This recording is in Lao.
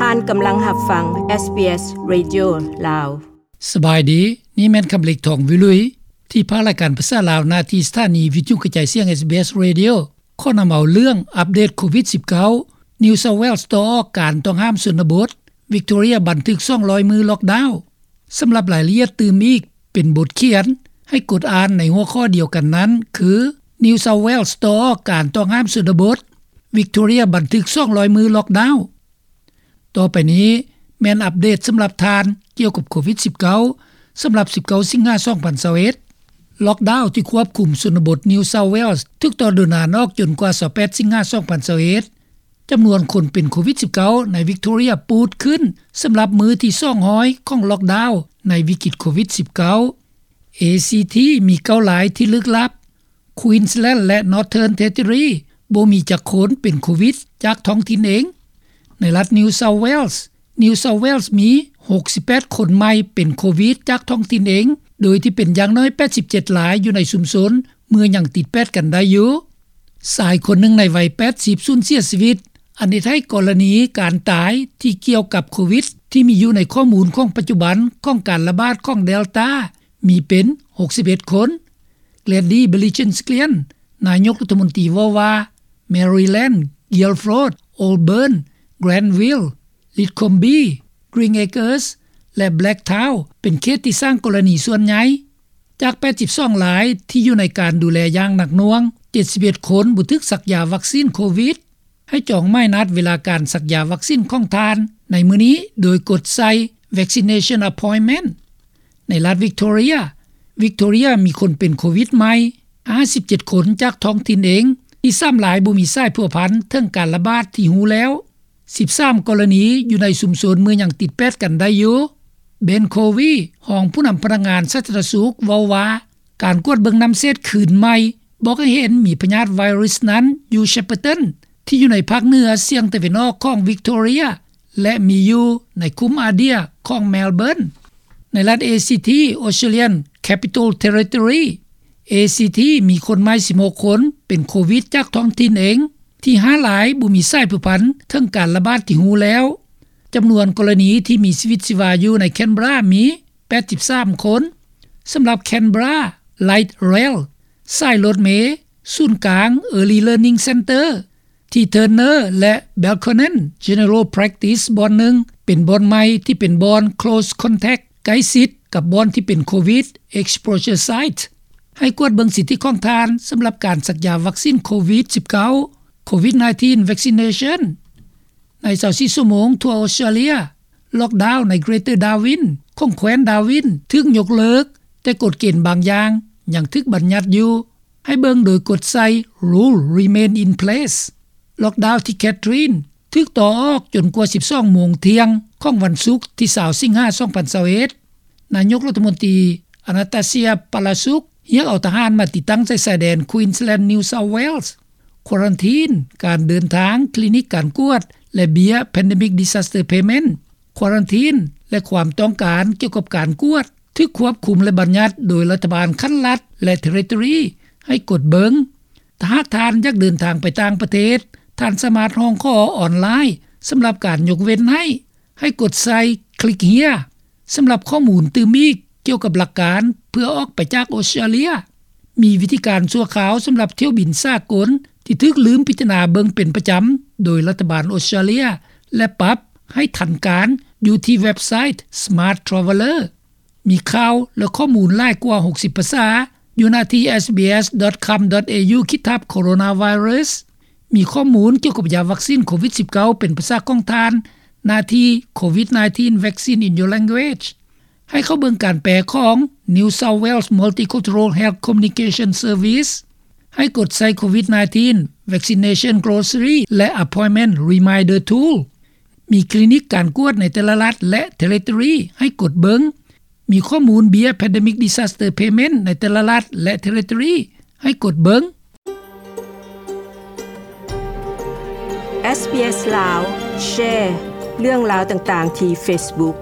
ທ່ານກຳລັງຮັບຟັງ ເອສບີເອສ ເຣດິໂອ ລາວ. ສະບາຍດີ, ນີ້ແມ່ນຄຳເລັກ ທອງວິລຸຍ ທີ່ພາລາຍການພາສາລາວ ໜ້າທີ່ສະຖານີວິທະຍຸກະຈາຍສຽງ ເອສບີເອສ ເຣດິໂອ ຂໍນຳເອົາເລື່ອງອັບເດດໂຄວິດສິບເກົ້າ, New South Wales ຕໍ່ອອກການຕ້ອງຫ້າມຊົນນະບົດ, Victoria ບັນທຶກສອງຮ້ອຍມື້ລັອກດາວ. ສຳລັບລາຍລະອຽດຕື່ມອີກເປັນບົດຂຽນ ໃຫ້ກົດອ່ານໃນຫົວຂໍ້ດຽວກັນນັ້ນ ຄື New South Wales ຕໍ່ອອກການຕ້ອງຫ້າມຊົນນະບົດ, Victoria ບັນທຶກສອງຮ້ອຍມື້ລັອກດາວ. ຕໍ່ໄປນີ້ແມ່ນອັບເດດສຳລັບທ່ານກ່ຽວກັບໂຄວິດສິບເກົ້າ ສຳລັບສິບເກົ້າສິງຫາສອງພັນຊາວເອັດ. ລັອກດາວທີ່ຄວບຄຸມຊົນນະບົດ New South Wales ຖືກຕໍ່ດົນນານອອກຈົນກວ່າຊາວແປດສິງຫາສອງພັນຊາວເອັດ. ຈຳນວນຄົນເປັນໂຄວິດສິບເກົ້າໃນ Victoria ປູດຂຶ້ນສຳລັບມື້ທີສອງຮ້ອຍຂອງລັອກດາວໃນວິກິດໂຄວິດສິບເກົ້າ. ເອຊີທີ ມີເກົ້າລາຍທີ່ລຶກລັບ. Queensland ແລະ Northern Territory ບໍ່ມີຈັກຄົນເປັນໂຄວິດຈາກທ້ອງຖິ່ນເອງ. ໃນລັດ New South Wales, New South Wales ມີຫົກສິບແປດຄົນໃໝ່ເປັນໂຄວິດຈາກທ້ອງຖິ່ນເອງ, ໂດຍທີ່ເປັນຢ່າງໜ້ອຍແປດສິບເຈັດລາຍຢູ່ໃນຊຸມຊົນເມືອງຍັງຕິດແປດກັນໄດ້ຢູ່. ຊາຍຄົນໜຶ່ງໃນໄວແປດສິບສູນເສຍຊີວິດ, ອັນເຮັດໃຫ້ກໍລະນີການຕາຍທີ່ກ່ຽວກັບໂຄວິດທີ່ມີຢູ່ໃນຂໍ້ມູນຂອງປັດຈຸບັນຂອງການລະບາດຂອງ Delta ມີເປັນຫົກສິບເອັດຄົນ. Gladys Berejiklian ນາຍົກລັດຖະມົນຕີເວົ້າວ່າ Maryland, Guildford, Auburn, Granville, Lithcombe, Greenacres ແລະ Blacktown ເປັນເຂດທີ່ສ້າງກໍລະນີສ່ວນໃຫຍ່. ຈາກແປດສິບສອງລາຍທີ່ຢູ່ໃນການດູແລຢ່າງໜັກໜ່ວງ, ເຈັດສິບເອັດຄົນບໍ່ຖືກສັກຢາວັກຊີນໂຄວິດ. ໃຫ້ຈອງໝາຍນັດເວລາການສັກຢາວັກຊີນຂອງທ່ານໃນມື້ນີ້ ໂດຍກົດໃສ່ Vaccination Appointment. ໃນລັດ Victoria, Victoria ມີຄົນເປັນໂຄວິດໃໝ່ຫ້າສິບເຈັດຄົນຈາກທ້ອງຖິ່ນເອງ, ອີກສາມລາຍບໍ່ມີສາຍພົວພັນເຖິງການລະບາດທີ່ຮູ້ແລ້ວ. ສິບສາມກໍລະນີຢູ່ໃນຊຸມຊົນເມືອງຍັງຕິດແປດກັນໄດ້ຢູ່. Ben Covey ຮອງຜູ້ນຳພະນັກງານສາທາລະນະສຸກເວົ້າວ່າ ການກວດເບິ່ງນ້ຳເສດຄືນໃໝ່ ບອກໃຫ້ເຫັນມີພະຍາດໄວຣັສນັ້ນຢູ່ Shepparton ທີ່ຢູ່ໃນພາກເໜືອສຽງຕາເວັນອອກຂອງ Victoria ແລະ ມີຢູ່ໃນຄຸ້ມ Adair ຂອງ Melbourne. ໃນລັດ ເອຊີທີ Australian Capital Territory, ເອຊີທີ ມີຄົນໃໝ່ສິບຫົກຄົນເປັນໂຄວິດຈາກທ້ອງຖິ່ນເອງ, ທີ່ຫ້າລາຍບໍ່ມີສາຍພົວພັນເຖິງການລະບາດທີ່ຮູ້ແລ້ວ. ຈຳນວນກໍລະນີທີ່ມີຊີວິດຊີວາຢູ່ໃນ Canberra ມີ ແປດສິບສາມຄົນ. ສຳລັບ Canberra Light Rail, ສາຍລົດເມ, ສູນກາງ Early Learning Centre ທີ່ Turner ແລະ Belconnen General Practice ບ່ອນໜຶ່ງ ເປັນບ່ອນໃໝ່ທີ່ເປັນບ່ອນ Close Contact ໃກ້ຊິດກັບບ່ອນທີ່ເປັນໂຄວິດ Exposure Site. ໃຫ້ກວດເບິ່ງສິດທິຂອງທ່ານສຳລັບການສັກຢາວັກຊີນໂຄວິດສິບເກົ້າ Covid nineteen Vaccination. ໃນຊາວສີ່ຊົ່ວໂມງທົ່ວອອສເຕຣເລັຍ, ລັອກດາວໃນ Greater Darwin ຂອງແຄວ້ນ Darwin ຖືກຍົກເລີກ, ແຕ່ກົດເກນບາງຢ່າງຍັງຖືກບັນຍັດຢູ່. ໃຫ້ເບິ່ງໂດຍກົດໃສ່ Rule Remain in Place. ລັອກດາວທີ່ Katherine ຖືກຕໍ່ອອກຈົນກວ່າສິບສອງໂມງທ່ຽງຂອງວັນສຸກທີຊາວສິງຫາສອງພັນຊາວເອັດ. ນາຍົກລັດຖະມົນຕີ Annastacia Palaszczuk ຮຽກເອົາທະຫານມາຕິດຕັ້ງໃສ່ຊາຍແດນ Queensland New South Wales. ຄວາຣັນທີນ, ການເດີນທາງ, ຄລີນິກການກວດ ແລະ ເບ້ຍ Pandemic Disaster Payment. ຄວາຣັນທີນ ແລະ ຄວາມຕ້ອງການກ່ຽວກັບການກວດ ຖືກຄວບຄຸມ ແລະ ບັນຍັດໂດຍລັດຖະບານຂັ້ນລັດ ແລະ Territory ໃຫ້ກົດເບິ່ງ. ຖ້າຫາກທ່ານຢາກເດີນທາງໄປຕ່າງປະເທດ, ທ່ານສາມາດຮ້ອງຂໍອອນລາຍສຳລັບການຍົກເວັ້ນໃຫ້. ໃຫ້ກົດໃສ່ Click Here ສຳລັບຂໍ້ມູນຕື່ມອີກກ່ຽວກັບຫຼັກການເພື່ອອອກໄປຈາກອອສເຕຣເລັຍ. ມີວິທີການຊົ່ວຄາວສຳລັບຖ້ຽວບິນສາກົນທີ່ຖືກລືມພິຈາລະນາເບິ່ງເປັນປະຈຳໂດຍລັດຖະບານອອສເຕຣເລັຍ ແລະ ປັບໃຫ້ທັນການຢູ່ທີ່ເວັບໄຊ Smart Traveller. ມີຂ່າວ ແລະ ຂໍ້ມູນຫຼາຍກວ່າຫົກສິບພາສາຢູ່ໜ້າທີ່ SBS dot com dot au ຂີດທັບ Coronavirus. ມີຂໍ້ມູນກ່ຽວກັບຢາວັກຊີນໂຄວິດສິບເກົ້າເປັນພາສາຂອງທ່ານ, ໜ້າທີ່ Covid nineteen Vaccine in Your Language. ໃຫ້ເຂົ້າເບິ່ງການແປຂອງ New South Wales Multicultural Health Communication Service. ໃຫ້ກົດໃສ່ Covid nineteen Vaccination Glossary ແລະ Appointment Reminder Tool. ມີຄລີນິກການກວດໃນແຕ່ລະລັດ ແລະ Territory ໃຫ້ກົດເບິ່ງ. ມີຂໍ້ມູນເບ້ຍ Pandemic Disaster Payment ໃນແຕ່ລະລັດ ແລະ Territory ໃຫ້ກົດເບິ່ງ. SBS ລາວ ແຊ ເລື່ອງລາວຕ່າງໆທີ່ Facebook.